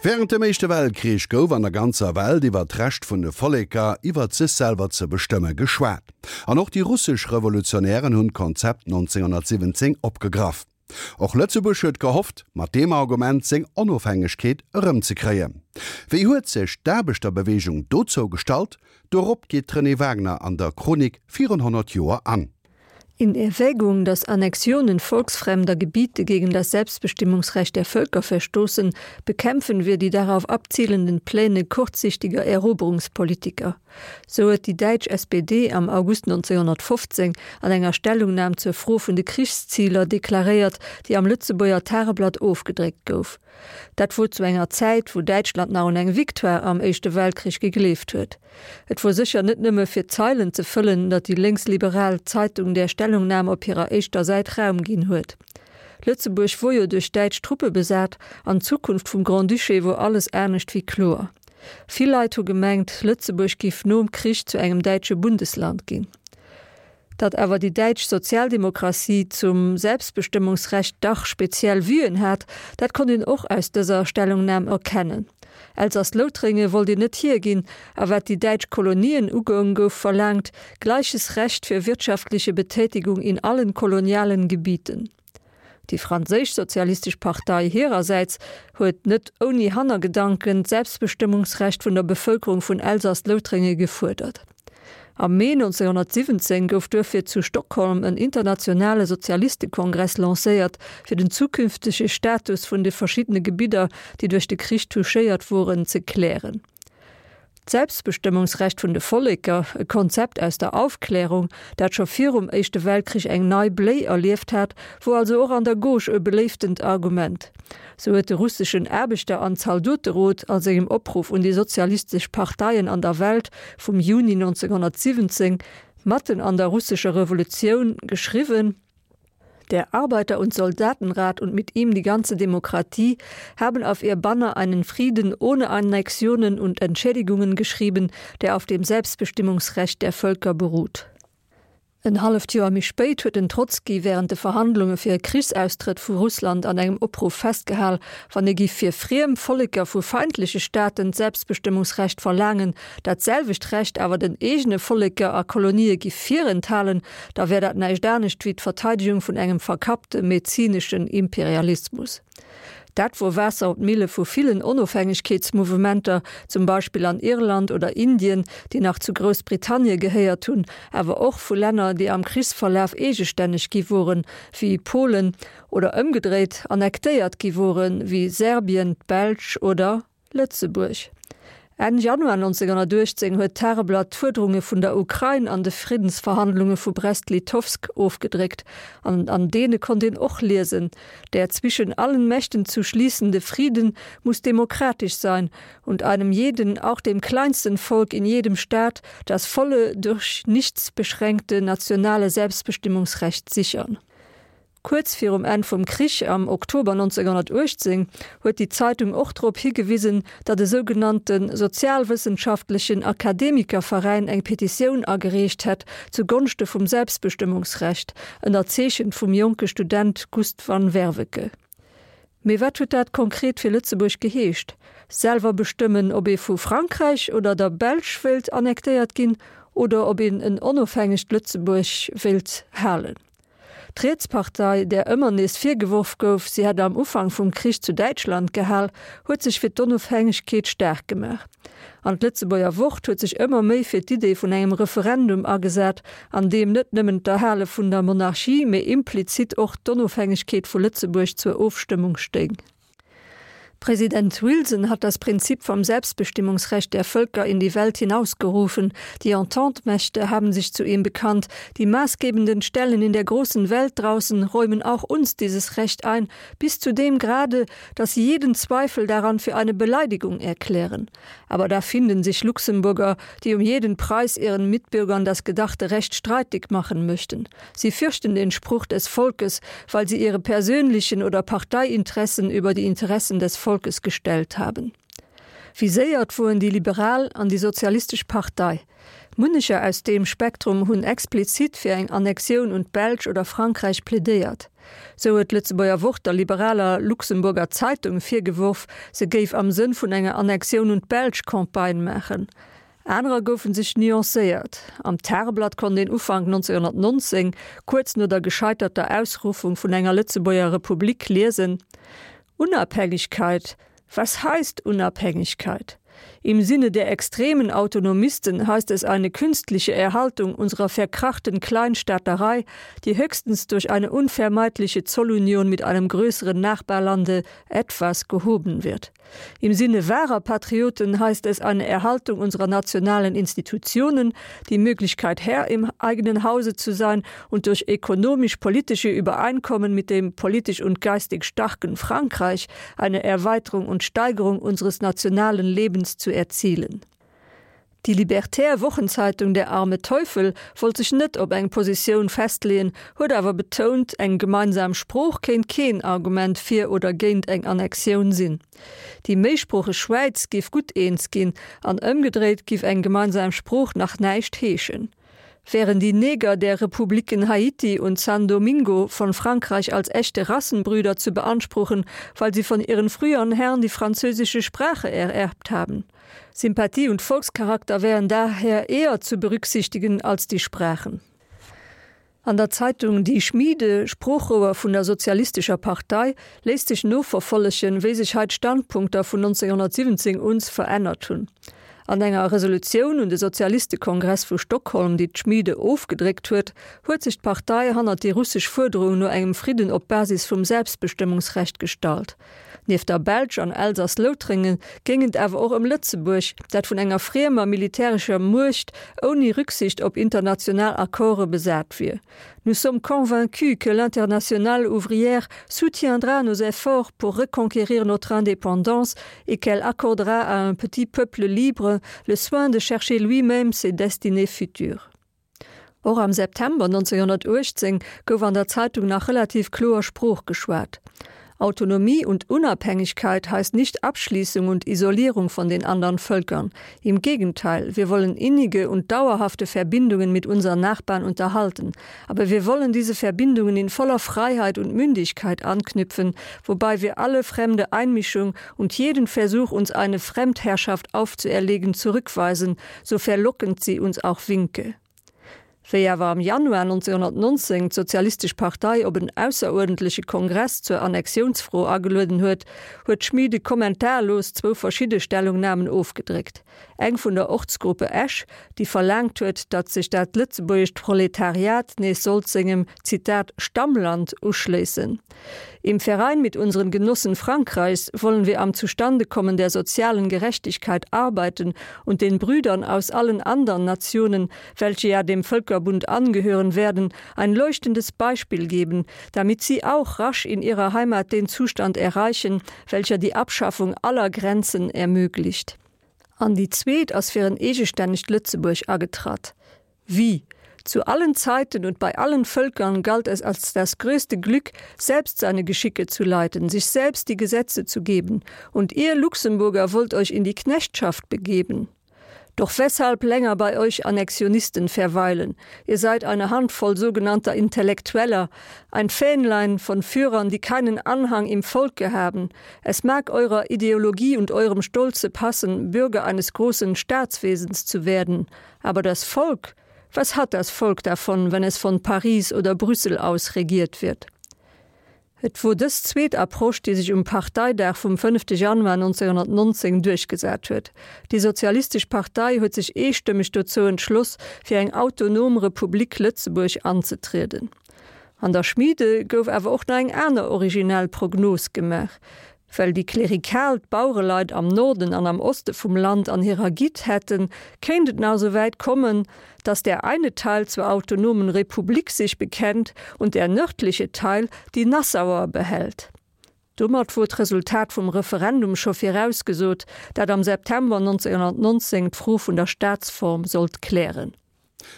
Wärend dem Éischte Weltkrich gouf an der ganzer Welt iwwer d'Recht vun de Volleker, iwwert sech selwer ze bestëmme geschwat. An och déi russesch Revolutionären hunn d'Konzept 1917 opgegraff. Och Lëtzebuerg huet gehofft, mat deem Argument seng Onofhängegkeet erëmzekréien. Wéi huet sech d'Aarbechterbeweegung dozou gestallt? Dorop geet d'Renée Wagner an der Chronik virun 100 Joer an. In Erwägung, dass Annexionen volksfremder Gebiete gegen das Selbstbestimmungsrecht der Völker verstoßen, bekämpfen wir die darauf abzielenden Pläne kurzsichtiger Eroberungspolitiker. Sou huet déi däitsch SPD am August 1915 an enger Stellungnam zur Fro vun de Krichsziler deklaréiert, déi am Lëtzebuerger Tageblatt ofgedréckt gouf. Dat wor zu enger Zäit, wou Däitschland nach un eng Victoire am Éischte Weltkrich gegleeft huet. Et wor sécher net nëmme fir Zeilen ze fëllen, datt déi lénksliberal Zeitung där Stellungnam op hirer éischter Säit Raum ginn huet. Lëtzebuerg wor jo duerch däitsch Truppe besat an d'Zukunft vum Grand-Duché wor alles anescht wéi kloer. Vill Leit hu gemengt, Lëtzebuerg giff nom Krich zu engem däitsche Bundesland ginn. Datt awer déi däitsch Sozialdemokratie zum Selbstbestëmmungsrecht dach speziell Vuen hat, dat konnt een och aus dëser Stellungnam erkennen. Elsass-Loutrénge wollt een net hierginn, a wat déi däitsch Kolonien ugoung, gouf verlaangt, gleiches Recht für wirtschaftliche Betätigung in allen kolonialen Gebieten. Déi franséisch Sozialistesch Partei hirersäits huet net ouni Hannergedanken d'Selbstbestëmmungsrecht vun der Bevëlkerung vun Elsass-Loutrénge gefuerdert. Am Mee 1917 gouf duerfir zu Stockholm en internationale Sozialistekongress lancéiert, fir den zukünftege Status vun de verschiddene Gebidder, déi duerch de Krich touchéiert woren, ze klären. D'Selbstbestëmmungsrecht vun de Volleker, e Konzept aus der Aufklärung, dat scho virum Éischte Weltkrich eng nei Bléi erlieft hat, wor also och an der Gauche e beléiftent Argument. Sou huet de russeschen Aarbechter an Zaldoterot a sengem Opruff un déi sozialistesch Parteien an der Welt vum Juni 1917, matten an der russescher Revolutioun, geschriwwen, Der Arbeiter- und Soldatenrat und mit ihm die ganze Demokratie haben auf ihr Banner einen Frieden ohne Annexionen und Entschädigungen geschrieben, der auf dem Selbstbestimmungsrecht der Völker beruht. En halleft Joer méi spéit huet den Trotzki wärend de Verhandlunge fir e Krichsaustrëtt vu Russland an engem Opruff festgehal, wann ee giff fir friem Volleker vu feindleche Staaten d'Selbstbestëmmungsrecht verlaangen, dat selwecht Recht awer den eegene Volleker a Kolonië giff virenthalen, da wär dat näischt anescht wéi d'Verteidegung vun engem verkappte mezineschen Imperialismus. Dat wor Waasser op d'Mille vu villen Onofhängegkeetsmouvementer, zum Beispill an Irland oder Indien, déi nach zu Groussbritannie gehéiert hunn, awer och vu Länner, déi am Krichsverlaf eegestänneg gi woren, wéi Polen, oder ëmgedréit annektéiert gi woren, wéi Serbien, d'Belsch oder. Lëtzebuerg. Enn Januar 1918 huet d'Tageblatt d'Fuerderunge vun der Ukrain an de Friddensverhandlunge vu Brest-Litovsk ofgedréckt an an deene konnt een och liesen, Der zwischen allen Mächten zu schließende Frieden muss demokratisch sein und einem jeden, auch dem kleinsten Volk in jedem Staat, das volle, durch nichts beschränkte nationale Selbstbestimmungsrecht sichern. Kuerz virum Enn vum Krich, am Oktober 1918, huet déi Zeitung och drop higewisen, datt e sougenannte sozialwëssenschaftlechen Akademikerveräin eng Petitioun agereecht hätt zu Gonschte vum Selbstbestëmmungsrecht, ënnerzeechent vum jonke Student Gust van Werveke. Mee wat huet dat konkret fir Lëtzebuerg geheescht? Selwer bestëmmen, ob ee vu Frankräich oder der Belsch wéilt annektéiert ginn oder ob een en onofhängegt Lëtzebuerg wéilt halen? D'Rietspartei, där ëmmer nees virgeworf gouf, si hätt am Ufank vum Krich zu Däitschland gehal, huet sech fir d'Onofhängegkeet staark gemaach. An d'Lëtzebuerger Wort huet sech ëmmer méi fir d'Idee vun engem Referendum agesat, an deem net nëmmen d'Erhale vun der Monarchie, mee implizit och d'Onofhängegkeet vu Lëtzebuerg zur Ofstëmmung stéing. Präsident Wilson hat das Prinzip vom Selbstbestimmungsrecht der Völker in die Welt hinausgerufen. Die Ententemächte haben sich zu ihm bekannt. Die maßgebenden Stellen in der großen Welt draußen räumen auch uns dieses Recht ein, bis zu dem Grade, dass sie jeden Zweifel daran für eine Beleidigung erklären. Aber da finden sich Luxemburger, die um jeden Preis ihren Mitbürgern das gedachte Recht streitig machen möchten. Sie fürchten den Spruch des Volkes, weil sie ihre persönlichen oder Parteiinteressen über die Interessen des Volkes gestellt haben. Viséiert woren déi liberal an déi sozialistesch Partei. Munnecher aus deem Spektrum hunn explizit fir eng Annexioun un d'Belsch oder Frankräich plädéiert. Sou huet d'Lëtzebuerger Wort der liberaler Luxemburger Zeitung virgeworf, se géif am Sënn vun enger Annexioun un d'Belsch Campagne maachen. Anerer goufen sech nuancéiert. Am Tageblatt konnt een Ufank 1919, kuerz no der gescheiterter Ausruffung vun enger Lëtzebuerger Republik, liesen, Unabhängigkeit, Was heißt Unabhängigkeit? Im Sinne der extremen Autonomisten heißt es eine künstliche Erhaltung unserer verkrachten Kleinstaaterei, die höchstens durch eine unvermeidliche Zollunion mit einem größeren Nachbarlande etwas gehoben wird. Im Sinne wahrer Patrioten heißt es eine Erhaltung unserer nationalen Institutionen, die Möglichkeit Herr im eigenen Hause zu sein und durch ökonomisch-politische Übereinkommen mit dem politisch und geistig starken Frankreich eine Erweiterung und Steigerung unseres nationalen Lebens zu erzielen. Déi libertär Wochenzeitung Der arme Teufel wollt sech net op eng Positioun festleeën, huet awer betount, eng gemeinsam Sprooch kéint keen Argument fir oder géint eng Annexioun sinn. Déi méisproocheg Schwäiz géif gutt eens ginn, an ëmgedréit giff eng gemeinsam Sprooch nach näischt heeschen. Wären die Neger der Republiken Haiti und San Domingo von Frankreich als echte Rassenbrüder zu beanspruchen, weil sie von ihren früheren Herren die französische Sprache ererbt haben. Sympathie und Volkscharakter wären daher eher zu berücksichtigen als die Sprachen. An der Zeitung Die Schmiede, Sproochrouer vun der Sozialistescher Partei, léisst sech noverfollegen, wéi sech hei d'Standpunkter vun 1917 uns verännert hunn. An enger Resolutioun un de Sozialistekongress vu Stockholm, déi d'Schmiede ofgedréckt huet, huet sech d'Partei hannert déi russesch Fuerderung no engem Fridden op Basis vum Selbstbestëmmungsrecht gestallt. Nieft der Belsch an Elsass-Loutrengen géing et awer och ëm Lëtzebuerg, dat vun enger friemer militärescher Muecht ouni Rücksicht op international Accorde besat wier. Nous sommes convaincus que l'internationale ouvrière soutiendra nos efforts pour reconquérir notre indépendance et qu'elle accordera à un petit peuple libre le soin de chercher lui-même ses destinées futures. Och am September 1918 gouf an der Zeitung nach relativ kloer Sprooch geschwat. Autonomie und Unabhängigkeit heißt nicht Abschließung und Isolierung von den anderen Völkern. Im Gegenteil, wir wollen innige und dauerhafte Verbindungen mit unseren Nachbarn unterhalten. Aber wir wollen diese Verbindungen in voller Freiheit und Mündigkeit anknüpfen, wobei wir alle fremde Einmischung und jeden Versuch, uns eine Fremdherrschaft aufzuerlegen, zurückweisen, so verlockend sie uns auch winke. Wéi awer am Januar 1919 d'Sozialistesch Partei op en ausseruerdentleche Kongress zur Annexiounsfro agelueden huet, huet d'Schmiede kommentarlos zwou verschidde Stellungnamen ofgedréckt, eng vun der Ortsgruppe Esch, déi verlaangt huet, datt sech dat lëtzebuergescht Proletariat nees sollt sengem, Zitat, Stammland uschléissen. Im Verein mit unseren Genossen Frankreichs wollen wir am Zustandekommen der sozialen Gerechtigkeit arbeiten und den Brüdern aus allen andern Nationen, welche ja dem Völkerbund angehören werden, ein leuchtendes Beispiel geben, damit sie auch rasch in ihrer Heimat den Zustand erreichen, welcher die Abschaffung aller Grenzen ermöglicht. An déi zweet ass fir en eegestännegt Lëtzebuerg agetratt. Wie? Zu allen Zeiten und bei allen Völkern galt es als das größte Glück, selbst seine Geschicke zu leiten, sich selbst die Gesetze zu geben. Und ihr Luxemburger wollt euch in die Knechtschaft begeben. Doch weshalb länger bei euch Annexionisten verweilen? Ihr seid eine Handvoll sogenannter Intellektueller, ein Fähnlein von Führern, die keinen Anhang im Volke haben. Es mag eurer Ideologie und eurem Stolze passen, Bürger eines großen Staatswesens zu werden. Aber das Volk, was hat das Volk davon, wenn es von Paris oder Brüssel aus regiert wird? Et wor dës zweet Approche, déi sech um Parteidag vum fënnefte Januar 1919 duerchgesat huet. Déi Sozialistesch Partei huet sech eestëmmeg dozou entschloss, fir eng autonom Republik Lëtzebuerg anzetrieden. An der Schmiede gouf awer och nach eng aner originell Prognos gemaach. Well déi klerikal d'Bauereleit am Norden an am Oste vum Land an hirer Gitt hätten, kéint et nach esou wäit kommen, dass der eine Teil zur autonomen Republik sich bekennt und der nördliche Teil die Nassauer behält. Domat wor d'Resultat vum Referendum scho virausgesot, dat am September 1919 d'Fro vun der Staatsform sollt klären.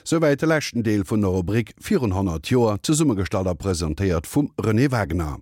Souwäit de leschten Deel vun der Rubrik Virun 100 Joer, zesummegestallt a presentéiert vum Renée Wagener.